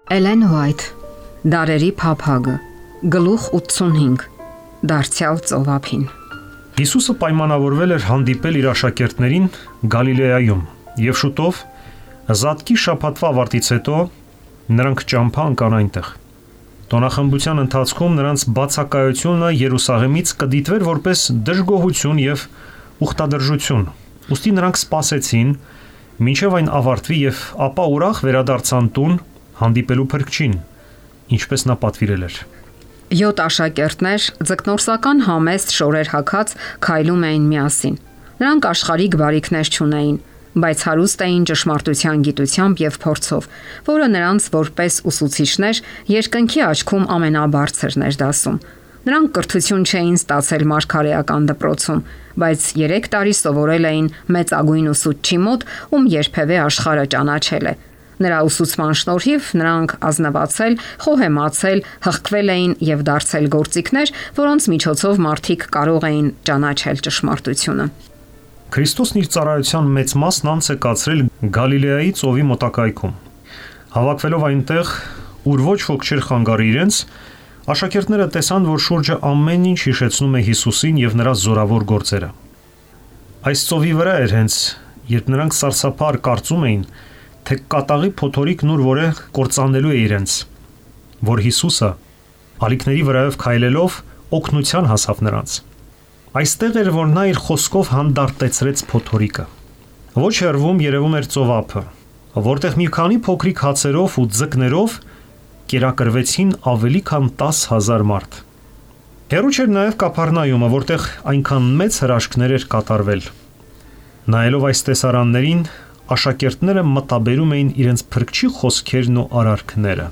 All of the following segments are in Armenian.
Էլեն Հուայթ, Դարերի փափագը, գլուխ 85, դարձյալ ծովափին։ Հիսուսը պայմանավորվել էր հանդիպել իր աշակերտներին Գալիլեայում, եւ շուտով Զատկի շաբաթվա ավարտից հետո նրանք ճամփա ընկան այնտեղ։ Տոնախմբության ընթացքում նրանց բացակայությունը Երուսաղեմից կդիտվեր որպես դժգոհություն եւ ուխտադրժություն։ Ուստի նրանք սպասեցին, մինչև այն ավարտվի եւ ապա ուրախ վերադարձան տուն հանդիպելու փրկչին, ինչպես նա պատվիրել էր։ 7 աշակերտներ ձկնորսական համեստ շորեր հագած քայլում էին միասին։ Նրանք աշխարհիկ բարիքներ չունեին, բայց հարուստ էին ճշմարտության գիտությամբ եւ փորձով, որը նրանց որպես ուսուցիչներ երկնքի աչքում ամենաբարձրն էր դասում։ Նրանք կրթություն չէին ստացել մարգարեական դպրոցում, բայց 3 տարի սովորել էին մեծագույն ուսուցչի մոտ, ում երբևէ աշխարհը ճանաչել է։ Նրա ուսուցման շնորհիվ նրանք ազնվացել, խոհեմացել, հղկվել էին եւ դարձել գործիքներ, որոնց միջոցով մարդիկ կարող էին ճանաչել ճշմարտությունը։ Քրիստոսն իր ծառայության մեծ մասն անց է կացրել Գալիլեայի ծովի մոտակայքում։ Հավաքվելով այնտեղ, ուր ոչ ոք չէր խանգարի իրենց, աշակերտները տեսան, որ շուրջը ամեն ինչ հիշեցնում է Հիսուսին եւ նրա զորավոր գործերը։ Այս ծովի վրա էր հենց, երբ նրանք սարսափար կարծում էին, թե կատաղի փոթորիկն ուր որը կործանելու է իրենց, որ Հիսուսը ալիքների վրայով քայլելով օգնության հասավ նրանց։ Այստեղ էր, որ նա իր խոսքով հանդարտեցրեց փոթորիկը։ Ոչ հեռվում երևում էր ծովափը, որտեղ մի քանի փոքրիկ հացերով ու ձկներով կերակրվեցին ավելի քան 10,000 մարդ։ Հեռու չէր նաև Կափառնայումը, որտեղ այնքան մեծ հրաշքներ էր կատարվել։ Նայելով այս տեսարաններին, աշակերտները մտաբերում էին իրենց փրկչի խոսքերն ու արարքները։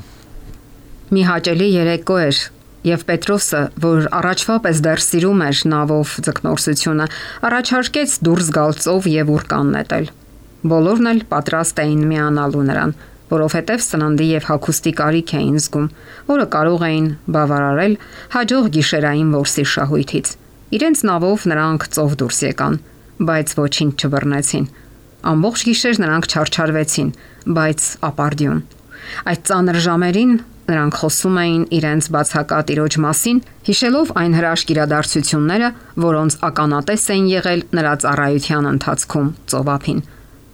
Մի հաճելի երեկո էր, եւ Պետրոսը, որ առաջվա պես դեռ սիրում էր նավով ձկնորսությունը, առաջարկեց դուրս գալ ծով եւ ուրկան նետել։ Բոլորն էլ պատրաստ էին միանալու նրան, որովհետեւ սննդի եւ հագուստի կարիք էին զգում, որը կարող էին բավարարել հաջող գիշերային որսի շահույթից։ Իրենց նավով նրանք ծով դուրս եկան, բայց ոչինչ չբռնեցին։ Ամբողջ գիշեր նրանք չարչարվեցին, բայց ապարդյուն։ Այդ ծանր ժամերին նրանք խոսում էին իրենց բացակա Տիրոջ մասին, հիշելով այն հրաշք իրադարձությունները, որոնց ականատես էին եղել նրա ծառայության ընթացքում ծովափին։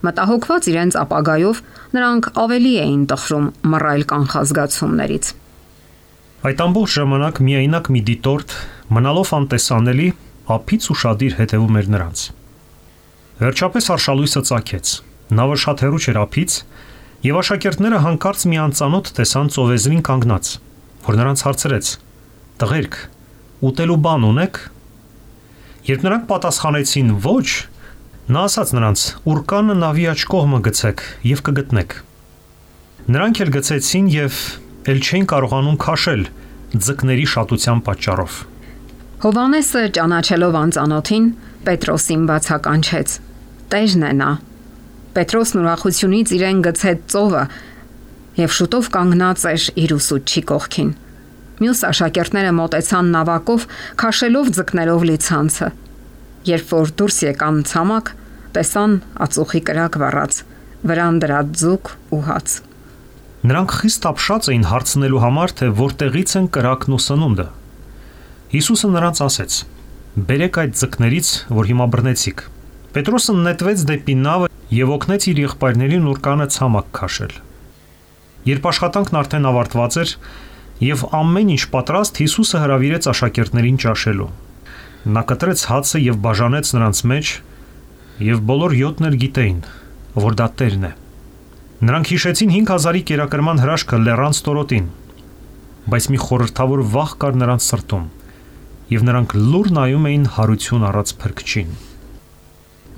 Մտահոգված իրենց ապագայով, նրանք ավելի էին տխրում մռայլ կանխազգացումներից։ Այդ ամբողջ ժամանակ միայնակ մի դիտորդ, մնալով անտեսանելի, ափից ուշադիր հետևում էր նրանց։ Վերջապես արշալույսը ծագեց։ Նավը շատ հեռու չէր ափից, եւ աշակերտները հանկարծ մի անծանոթ տեսան ծովեզրին կանգնած, որ նրանց հարցրեց. «Տղերք, ուտելու բան ունեք»։ Երբ նրանք պատասխանեցին ոչ, նա ասաց նրանց. «Ուրկանը նավի աջ կողմը գցեք եւ կգտնեք»։ Նրանք էլ գցեցին եւ ել չէին կարողանում քաշել ձկների շատության պատճառով։ Հովանեսը ճանաչելով անծանոթին, Պետրոսին բացականչեց. «Տերն է նա»։ Պետրոսն ուրախությունից իրեն գցեց ծովը եւ շուտով կանգնած էր իր ուսուցչի կողքին։ Մյուս աշակերտները մոտեցան նավակով, քաշելով ձկներով լի ցանցը։ Երբ որ դուրս եկան ցամաք, տեսան ածուխի կրակ վառած, վրան դրած ձուկ ու հաց։ Նրանք խիստ ապշած էին հարցնելու համար, թե որտեղից են կրակն ու սնունդը։ Հիսուսը նրանց ասեց. «Բերեք այդ ձկներից, որ հիմա բռնեցիք»։ Պետրոսը նետվեց դեպի նավը եւ օգնեց իր եղբայրներին ուրկանը ցամաք քաշել։ Երբ աշխատանքն արդեն ավարտված էր եւ ամեն ինչ պատրաստ, Հիսուսը հրավիրեց աշակերտներին ճաշելու։ Նա կտրեց հացը եւ բաժանեց նրանց մեջ, եւ բոլոր 7-ն էլ գիտեին, որ դա Տերն է։ Նրանք հիշեցին 5,000-ի կերակրման հրաշքը լեռան ստորոտին, բայց մի խորհրդավոր վախ կար նրանց սրտում, եւ նրանք լուր նայում էին հարություն առած փրկչին։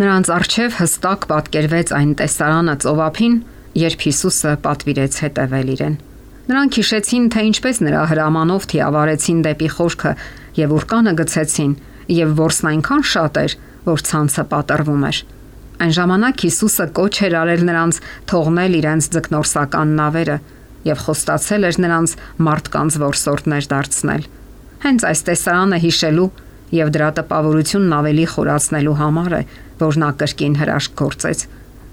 Նրանց առջև հստակ պատկերվեց այն տեսարանը ծովափին, երբ Հիսուսը պատվիրեց հետևել իրեն։ Նրանք հիշեցին, թե ինչպես նրա հրամանով թիավարեցին դեպի խորքը եւ ուրկանը գցեցին, եւ որսն այնքան շատ էր, որ ցանցը պատռվում էր։ Այն ժամանակ Հիսուսը կոչ էր արել նրանց թողնել իրենց ձկնորսական նավերը եւ խոստացել էր նրանց մարդկանց որսորդներ դարձնել։ Հենց այս տեսարանը հիշելու եւ դրա տպավորությունն ավելի խորացնելու համար է, որ նա կրկին հրաշք գործեց։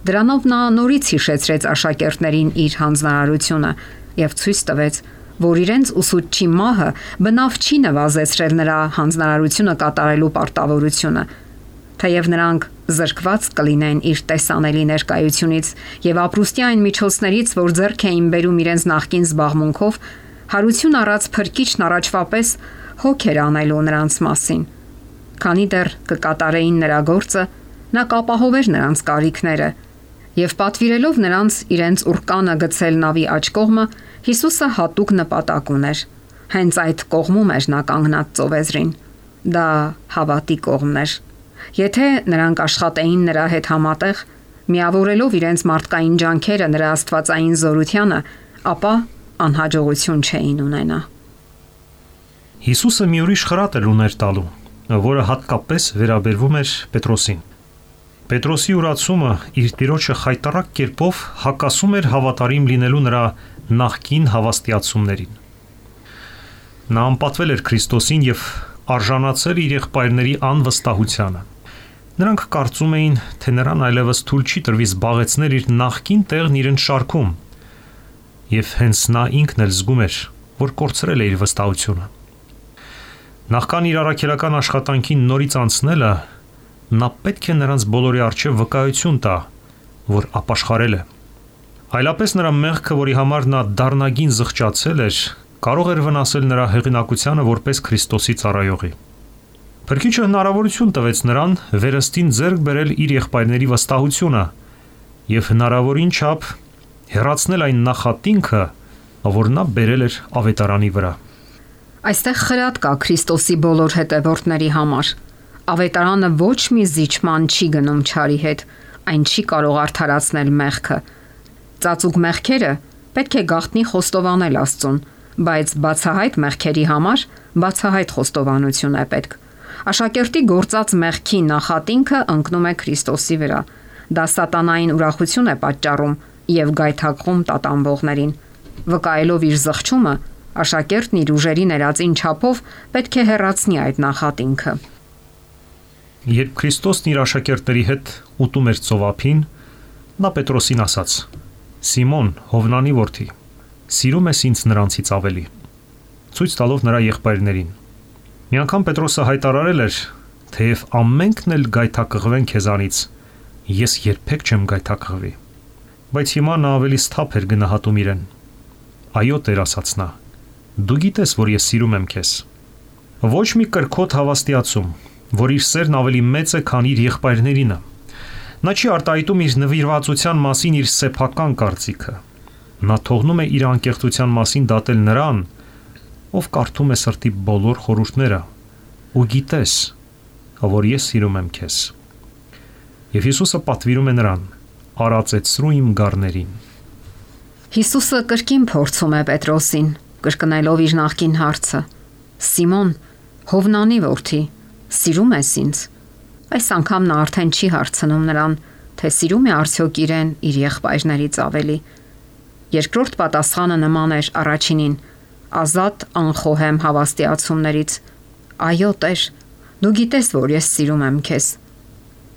Դրանով նա նորից հիշեցրեց աշակերտներին իր հանձնարարությունը, եւ ցույց տվեց, որ իրենց ուսուցչի մահը բնավ չի նվազեցրել նրա հանձնարարությունը կատարելու պարտավորությունը, թեև նրանք զրկված կլինեն իր տեսանելի ներկայությունից եւ ապրուստյան միջոցներից, որ ձեռք էին բերում իրենց նախկին զբաղմունքով, հարություն առած փրկիչն առաջվապես հոգ էր անելու նրանց մասին։ Քանի դեռ կկատարեին նրա գործը, նա կապահովեր նրանց կարիքները եւ պատվիրելով նրանց իրենց ուրկանը գցել նավի աջ կողմը, Հիսուսը հատուկ նպատակ ուներ։ Հենց այդ կողմում էր նա կանգնած ծովեզրին։ Դա հավատի կողմն էր։ Եթե նրանք աշխատեին նրա հետ համատեղ, միավորելով իրենց մարդկային ջանքերը նրա աստվածային զորությանը, ապա անհաջողություն չէին ունենա։ Հիսուսը մի ուրիշ խրատ էր ուներ տալու, որը հատկապես վերաբերվում էր Պետրոսին։ Պետրոսի ուրացումը իր տիրոջը խայտառակ կերպով հակասում էր հավատարիմ լինելու նրա նախկին հավաստիացումներին։ Նա անպատվել էր Քրիստոսին եւ արժանացել իր եղբայրների անվստահությանը։ Նրանք կարծում էին, թե նրան այլևս թույլ չի տրվի զբաղեցնել իր նախկին տեղն իրենց շարքում, եւ հենց նա ինքն էլ զգում էր, որ կորցրել է իր վստահությունը։ Նախքան իր առաքելական աշխատանքին նորից անցնելը, նա պետք է նրանց բոլորի առջև վկայություն տա, որ ապաշխարել է։ Այլապես նրա մեղքը, որի համար նա դառնագին զղջացել էր, կարող էր վնասել նրա հեղինակությանը որպես Քրիստոսի ծառայողի։ Փրկիչը հնարավորություն տվեց նրան վերստին ձեռք բերել իր եղբայրների վստահությունը եւ հնարավորին չափ հեռացնել այն նախատինքը, որ նա բերել էր ավետարանի վրա։ Այստեղ խրատ կա Քրիստոսի բոլոր հետևորդների համար։ Ավետարանը ոչ մի զիջման չի գնում չարի հետ, այն չի կարող արդարացնել մեղքը։ Ծածուկ մեղքերը պետք է գաղտնի խոստովանել Աստծուն, բայց բացահայտ մեղքերի համար բացահայտ խոստովանություն է պետք։ Աշակերտի գործած մեղքի նախատինքը ընկնում է Քրիստոսի վրա։ Դա սատանային ուրախություն է պատճառում եւ գայթակղում տատանվողներին։ Վկայելով իր զղջումը, աշակերտն իր ուժերի ներածին չափով պետք է հեռացնի այդ նախատինքը։ Երբ Քրիստոսն իր աշակերտների հետ ուտում էր ծովափին, նա Պետրոսին ասաց. «Սիմոն, Հովնանի որդի, սիրում ես ինձ նրանցից ավելի», ցույց տալով նրա եղբայրներին։ Մի անգամ Պետրոսը հայտարարել էր, թեև ամենքն էլ գայթակղվեն քեզանից, ես երբեք չեմ գայթակղվի։ Բայց հիմա նա ավելի սթափ էր գնահատում իրեն։ Այո, Տեր, ասաց նա, դու գիտես, որ ես սիրում եմ քեզ։ Ոչ մի կրքոտ հավաստիացում, որ իր սերն ավելի մեծ է, քան իր եղբայրներինը։ Նա չի արտահայտում իր նվիրվածության մասին իր սեփական կարծիքը։ Նա թողնում է իր անկեղծության մասին դատել նրան, ով կարդում է սրտի բոլոր խորհուրդները, ու գիտես, որ ես սիրում եմ քեզ։ Եվ Հիսուսը պատվիրում է նրան. «Արածեցրու իմ գառներին»։ Հիսուսը կրկին փորձում է Պետրոսին, կրկնելով իր նախկին հարցը. «Սիմոն, Հովնանի որդի, սիրում ես ինձ»։ Այս անգամ նա արդեն չի հարցնում նրան, թե սիրում է արդյոք իրեն իր եղբայրներից ավելի։ Երկրորդ պատասխանը նման էր առաջինին, ազատ անխոհեմ հավաստիացումներից. «Այո, Տեր, դու գիտես, որ ես սիրում եմ քեզ»։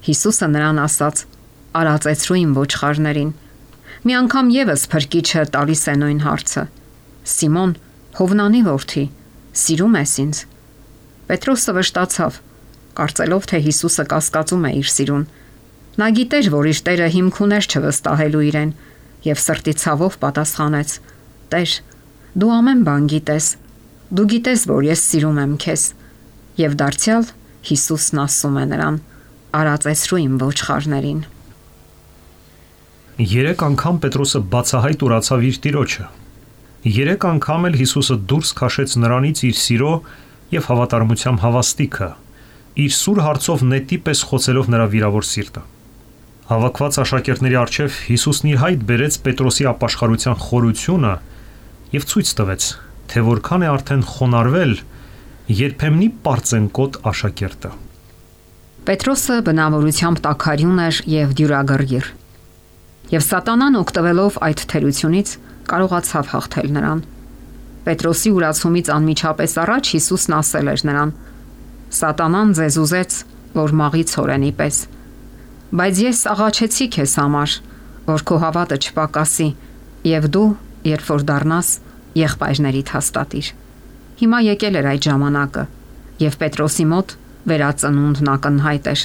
Հիսուսը նրան ասաց. «Արածեցրու իմ ոչխարներին»։ Մի անգամ եւս Փրկիչը տալիս է նույն հարցը. «Սիմոն, Հովնանի որդի, սիրում ես ինձ»։ Պետրոսը վշտացավ, կարծելով, թե Հիսուսը կասկածում է իր սիրուն։ Նա գիտեր, որ իր Տերը հիմք ուներ չվստահելու իրեն, եւ սրտի ցավով պատասխանեց. «Տեր, դու ամեն բան գիտես։ Դու գիտես, որ ես սիրում եմ քեզ»։ Եվ դարձյալ Հիսուսն ասում է նրան. «Արածեցրու իմ ոչխարներին»։ 3 անգամ Պետրոսը բացահայտ ուրացավ իր տիրոջը։ 3 անգամ էլ Հիսուսը դուրս քաշեց նրանից իր սիրո եւ հավատարմության հավաստիքը, իր սուր հարցով նետի պես խոցելով նրա վիրավոր սիրտը։ Հավաքված աշակերտների առջև Հիսուսն իր հայտ բերեց Պետրոսի ապաշխարության խորությունը եւ ցույց տվեց, թե որքան է արդեն խոնարհվել երբեմնի պարծենկոտ աշակերտը։ Պետրոսը բնավորությամբ տաքարյուն էր եւ դյուրագրգիռ։ Եվ սատանան օգտվելով այդ թերությունից կարողացավ հաղթել նրան։ Պետրոսի ուրացումից անմիջապես առաջ Հիսուսն ասել էր նրան. «Սատանան ձեզ ուզեց, որ մաղի ցորենի պես, բայց ես աղաչեցի քեզ համար, որ քո հավատը չպակասի, եւ դու երբ որ դառնաս եղբայրներիդ հաստատիր։ Հիմա եկել էր այդ ժամանակը, եւ Պետրոսի մոտ վերածնունդն ակնհայտ էր։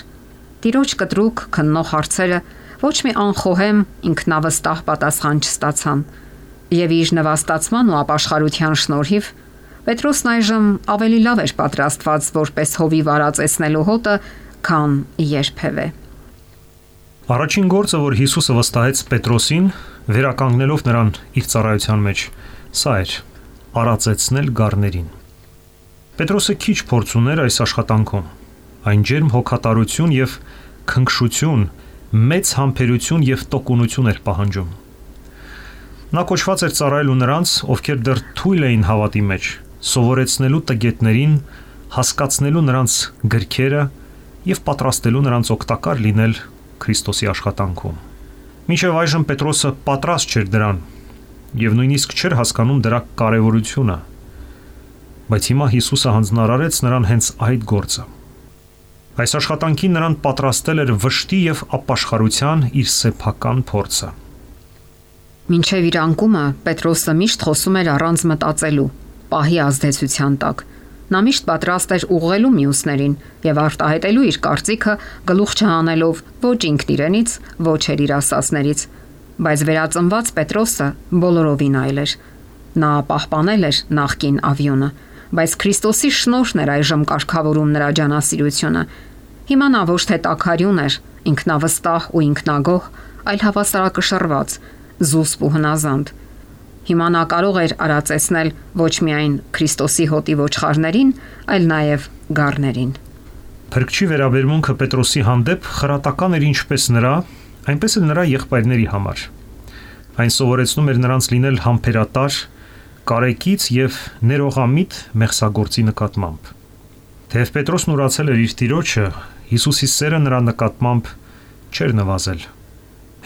Տիրոջ կտրուկ քննող հարցերը ոչ մի անխոհեմ ինքնավստահ պատասխան չստացան, եւ իր նվաստացման ու ապաշխարության շնորհիվ Պետրոսն այժմ ավելի լավ էր պատրաստված որպես հովի վարածեցնելու հոտը, քան երբևէ։ Առաջին գործը, որ Հիսուսը վստահեց Պետրոսին, վերականգնելով նրան իր ծառայության մեջ, սա էր՝ արածեցնել գառներին։ Պետրոսը քիչ փորձ ուներ այս աշխատանքում։ Այն ջերմ հոգատարություն եւ քնքշություն, մեծ համբերություն եւ տոկունություն էր պահանջում։ Նա կոչված էր ծառայելու նրանց, ովքեր դեռ թույլ էին հավատի մեջ, սովորեցնելու տգետներին, հասկացնելու նրանց գրքերը եւ պատրաստելու նրանց օգտակար լինել Քրիստոսի աշխատանքում։ Մինչև այժմ Պետրոսը պատրաստ չէր դրան եւ նույնիսկ չէր հասկանում դրա կարեւորությունը։ Բայց հիմա Հիսուսը հանձնարարեց նրան հենց այդ գործը։ Այս աշխատանքին նրան պատրաստել էր վշտի եւ ապաշխարության իր սեփական փորձը։ Մինչև իր անկումը Պետրոսը միշտ խոսում էր առանց մտածելու, պահի ազդեցության տակ։ Նա միշտ պատրաստ էր ուղղելու մյուսներին եւ արտահայտելու իր կարծիքը գլուխ չհանելով ոչ ինքն իրենից, ոչ էլ իր ասածներից, բայց վերածնված Պետրոսը բոլորովին այլ էր։ Նա պահպանել էր նախկին ավյունը, բայց Քրիստոսի շնորհն էր այժմ կարգավորում նրա ջանասիրությունը։ Հիմա նա ոչ թե տաքարյուն էր, ինքնավստահ ու ինքնագոհ, այլ հավասարակշռված, զուսպ ու հնազանդ։ Հիմա նա կարող էր արածեցնել ոչ միայն Քրիստոսի հոտի ոչխարներին, այլ նաև գառներին։ Փրկչի վերաբերմունքը Պետրոսի հանդեպ խրատական էր ինչպես նրա, այնպես էլ նրա եղբայրների համար։ Այն սովորեցնում էր նրանց լինել համբերատար, կարեկից եւ ներողամիտ մեղսագործի նկատմամբ։ Թեև Պետրոսն ուրացել էր իր տիրոջը, Հիսուսի սերը նրա նկատմամբ չէր նվազել։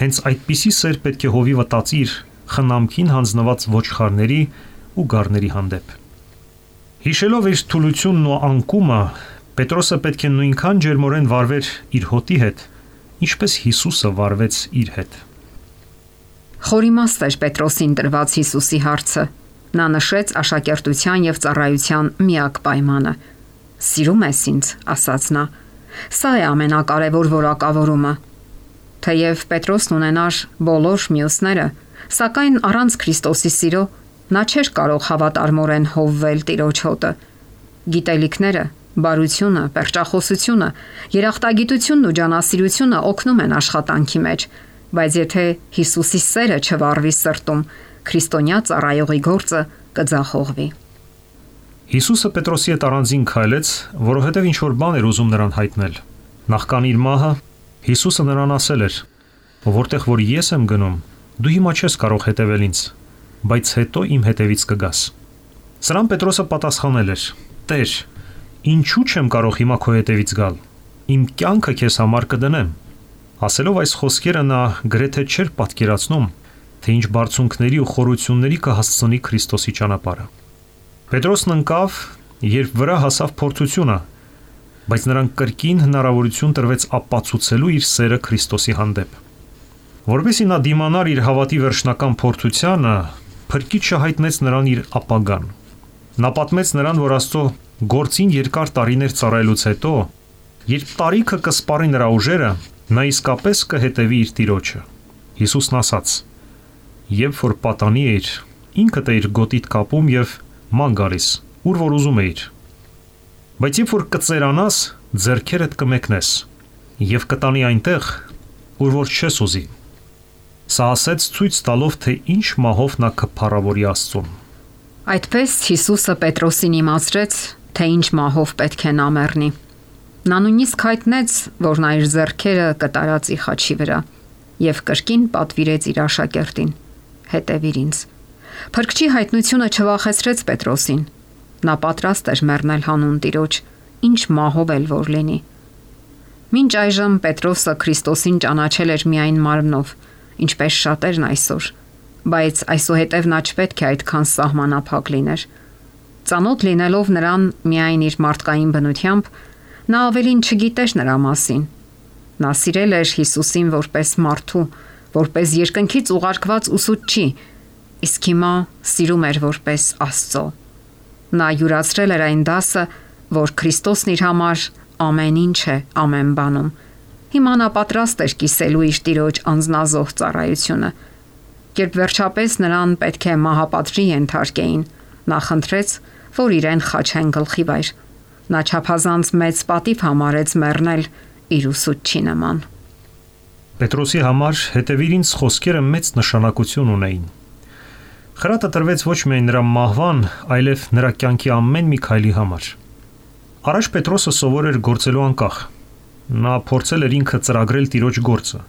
Հենց այդպիսի սեր պետք է հովի վտածիր խնամքին հանձնված ոչխարների ու գառների հանդեպ։ Հիշելով իր թուլությունն ու անկումը, Պետրոսը պետք է նույնքան ջերմորեն վարվեր իր հոտի հետ, ինչպես Հիսուսը վարվեց իր հետ։ Խորիմաստ էր Պետրոսին տրված Հիսուսի հարցը։ Նա նշեց աշակերտության եւ ծառայության միակ պայմանը։ «Սիրում ես ինձ», ասաց նա։ Սա է ամենակարևոր որակավորումը։ Թեև Պետրոսն ունենար բոլոր մյուսները, սակայն առանց Քրիստոսի սիրո նա չէր կարող հավատարմորեն հովվել Տիրոջ հոտը։ Գիտելիքները, բարությունը, պերճախոսությունը, երախտագիտությունն ու ջանասիրությունը օգնում են աշխատանքի մեջ, բայց եթե Հիսուսի սերը չվառվի սրտում, քրիստոնյա ծառայողի գործը կձախողվի։ Հիսուսը Պետրոսի հետ առանձին քայլեց, որովհետև ինչ-որ բան էր ուզում նրան հայտնել։ Նախքան իր մահը Հիսուսը նրան ասել էր. «Որտեղ որ ես եմ գնում, դու հիմա չես կարող հետևել ինձ, բայց հետո իմ հետևից կգաս»։ Սրան Պետրոսը պատասխանել էր. «Տեր, ինչու չեմ կարող հիմա քո հետևից գալ։ Իմ կյանքը քեզ համար կդնեմ»։ Ասելով այս խոսքերը նա գրեթե չէր պատկերացնում, թե ինչ բարձունքների ու խորությունների կհասցնի Քրիստոսի ճանապարհը։ Պետրոսն ընկավ, երբ վրա հասավ փորձությունը, բայց նրան կրկին հնարավորություն տրվեց ապացուցելու իր սերը Քրիստոսի հանդեպ։ Որովհետև նա դիմանար իր հավատի վերջնական փորձությանը, Փրկիչը հայտնեց նրան իր ապագան։ Նա պատմեց նրան, որ Աստծո գործին երկար տարիներ ծառայելուց հետո, երբ տարիքը կսպառի նրա ուժերը, նա իսկապես կհետևի իր Տիրոջը։ Հիսուսն ասաց. «Երբ որ պատանի էիր, ինքդ էիր գոտիդ կապում եւ ման գալիս, ուր որ ուզում էիր։ Բայց երբ որ կծերանաս, ձեռքերդ կմեկնես եւ կտանի այնտեղ, ուր որ չես ուզի»։ Սա ասեց ցույց տալով, թե ինչ մահով նա կփառավորի Աստծուն։ Այդպես Հիսուսը Պետրոսին իմացրեց, թե ինչ մահով պետք է նա մեռնի։ Նա նույնիսկ հայտնեց, որ նա իր ձեռքերը կտարածի խաչի վրա եւ կրկին պատվիրեց իր աշակերտին. «Հետևիր ինձ»։ Փրկչի հայտնությունը չվախեցրեց Պետրոսին։ Նա պատրաստ էր մեռնել հանուն Տիրոջ, ինչ մահով էլ որ լինի։ Մինչ այժմ Պետրոսը Քրիստոսին ճանաչել էր միայն մարմնով, ինչպես շատերն այսօր, բայց այսուհետև նա չպետք է այդքան սահմանափակ լիներ։ Ծանոթ լինելով նրան միայն իր մարդկային բնությամբ, նա ավելին չգիտեր նրա մասին։ Նա սիրել էր Հիսուսին որպես մարդու, որպես երկնքից ուղարկված ուսուցչի, իսկ հիմա սիրում էր որպես Աստծո։ Նա յուրացրել էր այն դասը, որ Քրիստոսն իր համար ամեն ինչ է ամեն բանում։ Հիմա նա պատրաստ էր կիսելու իր Տիրոջ անձնազոհ ծառայությունը։ Երբ վերջապես նրան պետք է մահապատժի ենթարկեին, նա խնդրեց, որ իրեն խաչեն գլխի վայր։ Նա չափազանց մեծ պատիվ համարեց մեռնել իր ուսուցչի նման։ Պետրոսի համար հետևիր ինձ խոսքերը մեծ նշանակություն ունեին։ Խրատը տրվեց ոչ միայն նրա մահվան, այլև նրա կյանքի ամեն մի քայլի համար։ Առաջ Պետրոսը սովոր էր գործելու անկախ։ Նա փորձել էր ինքը ծրագրել Տիրոջ գործը,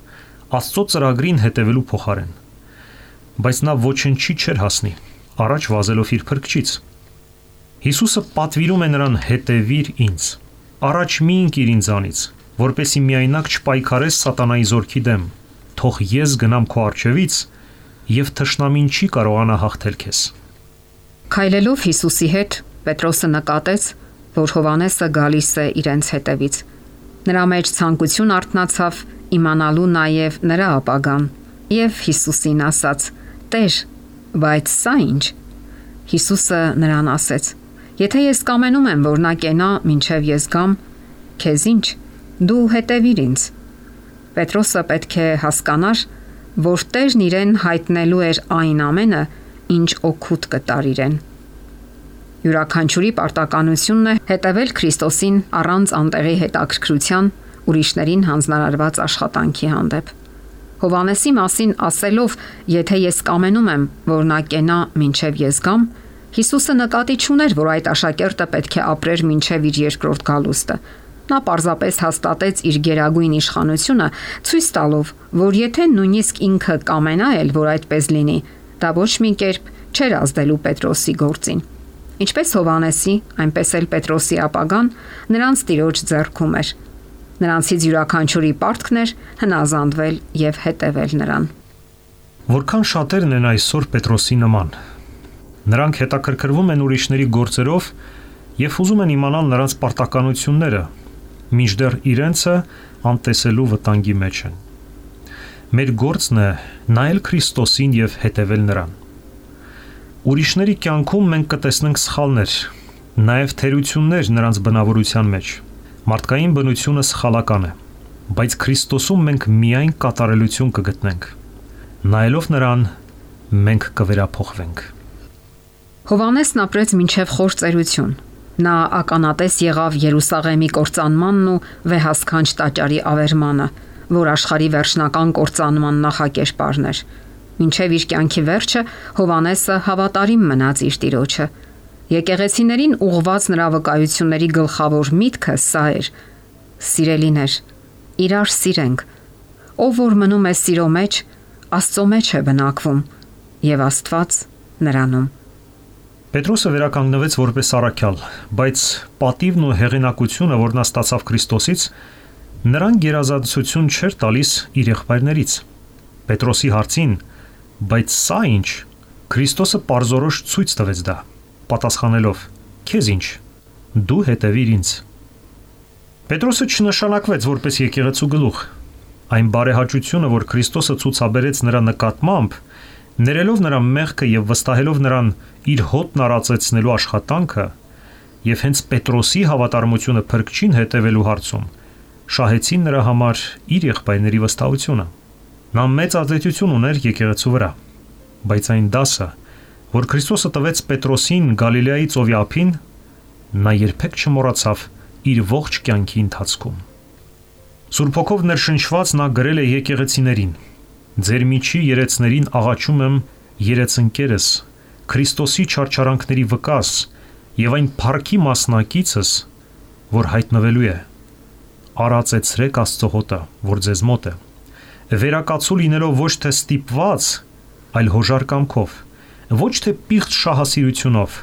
Աստծո ծրագրին հետևելու փոխարեն։ Բայց նա ոչնչի չէր հասնի, առաջ վազելով իր փրկչից։ Հիսուսը պատվիրում է նրան հետևիր ինձ։ Առաջ մի ընկիր ինձանից, որպեսզի միայնակ չպայքարես սատանայի զորքի դեմ։ Թող ես գնամ քո առջևից, եւ թշնամին չի կարողանա հաղթել քեզ։ Քայլելով Հիսուսի հետ, Պետրոսը նկատեց, որ Հովհաննեսը գալիս է իրենց հետևից։ Նրա մեջ ցանկություն արթնացավ իմանալու նաև նրա ապագան, եւ Հիսուսին ասաց. «Տեր, բայց սա ինչ»։ Հիսուսը նրան ասեց. «Եթե ես կամենում եմ, որ նա կենա, մինչև ես գամ, քեզ ինչ, դու հետևիր ինձ»։ Պետրոսը պետք է հասկանար, որ Տերն իրեն հայտնելու էր այն ամենը, ինչ օգուտ կտար իրեն։ Յուրաքանչյուրի պարտականությունն է հետևել Քրիստոսին առանց անտեղի հետաքրքրության ուրիշներին հանձնարարված աշխատանքի հանդեպ։ Հովհաննեսի մասին ասելով, եթե ես կամենում եմ, որ նա կենա մինչև ես գամ, Հիսուսը նկատի չուներ, որ այդ աշակերտը պետք է ապրեր մինչև իր երկրորդ գալուստը։ Նա պարզապես հաստատեց իր գերագույն իշխանությունը, ցույց տալով, որ եթե նույնիսկ ինքը կամենա էլ, որ այդպես լինի, դա ոչ մի կերպ չէր ազդելու Պետրոսի գործին։ Ինչպես Հովհաննեսի, այնպես էլ Պետրոսի ապագան նրանց Տիրոջ ձեռքում էր։ Նրանցից յուրաքանչյուրի պարտքն էր հնազանդվել եւ հետևել նրան։ Որքան շատերն են այսօր Պետրոսի նման։ Նրանք հետաքրքրվում են ուրիշների գործերով եւ ուզում են իմանալ նրանց պարտականությունները, մինչդեռ իրենցը անտեսելու վտանգի մեջ են։ Մեր գործն է նայել Քրիստոսին եւ հետևել նրան։ Ուրիշների կյանքում մենք կտեսնենք սխալներ, նաեւ թերություններ նրանց բնավորության մեջ։ Մարդկային բնությունը սխալական է, բայց Քրիստոսում մենք միայն կատարելություն կգտնենք։ Նայելով նրան, մենք կվերափոխվենք։ Հովհաննեսն ապրեց մինչև խոր ծերություն։ Նա ականատես եղավ Երուսաղեմի կործանմանն ու վեհասքանչ տաճարի ավերմանը, որ աշխարհի վերջնական կործանման նախակերպարն էր։ Մինչև իր կյանքի վերջը Հովհաննեսը հավատարիմ մնաց իր Տիրոջը։ Եկեղեցիներին ուղղված նրա վկայությունների գլխավոր միտքը սա էր. Սիրելիներ, իրար սիրենք։ Ով որ մնում է սիրո մեջ, Աստծո մեջ է բնակվում, եւ Աստված նրանում։ Պետրոսը վերականգնվեց որպես առաքյալ, բայց պատիվն ու հեղինակությունը, որ նա ստացավ Քրիստոսից, նրան գերազանցություն չէր տալիս իր եղբայրներից։ Պետրոսի հարցին, բայց սա ինչ, Քրիստոսը պարզորոշ ցույց տվեց դա, պատասխանելով. Քեզ ինչ, դու հետևիր ինձ։ Պետրոսը չնշանակվեց որպես եկեղեցու գլուխ։ Այն բարեհաճությունը, որ Քրիստոսը ցուցաբերեց նրա նկատմամբ, ներելով նրա մեղքը եւ վստահելով նրան իր հոտն արածեցնելու աշխատանքը, եւ հենց Պետրոսի հավատարմությունը փրկչին հետևելու հարցում, շահեցին նրա համար իր եղբայրների վստահությունը։ Նա մեծ ազդեցություն ուներ եկեղեցու վրա, բայց այն դասը, որ Քրիստոսը տվեց Պետրոսին Գալիլեայի ծովի ափին, նա երբեք չմոռացավ իր ողջ կյանքի ընթացքում։ Սուրբ Հոգով ներշնչված նա գրել է եկեղեցիներին. Ձեր միջի երեցներին աղաչում եմ երեցընկերս, Քրիստոսի չարչարանքների վկաս եւ այն փառքի մասնակիցս, որ հայտնվելու է։ Արածեցրեք Աստծո հոտը, որ ձեզ մոտ է։ Վերակացու լինելով ոչ թե ստիպված, այլ հոժար կամքով, ոչ թե պիղծ շահասիրությունով,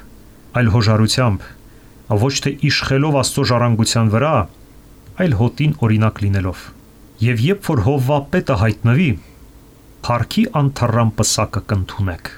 այլ հոժարությամբ, ոչ թե իշխելով Աստծո ժառանգության վրա, այլ հոտին օրինակ լինելով։ Եվ երբ որ Հովվապետը հայտնվի, փառքի անթառամ պսակը կընդունեք։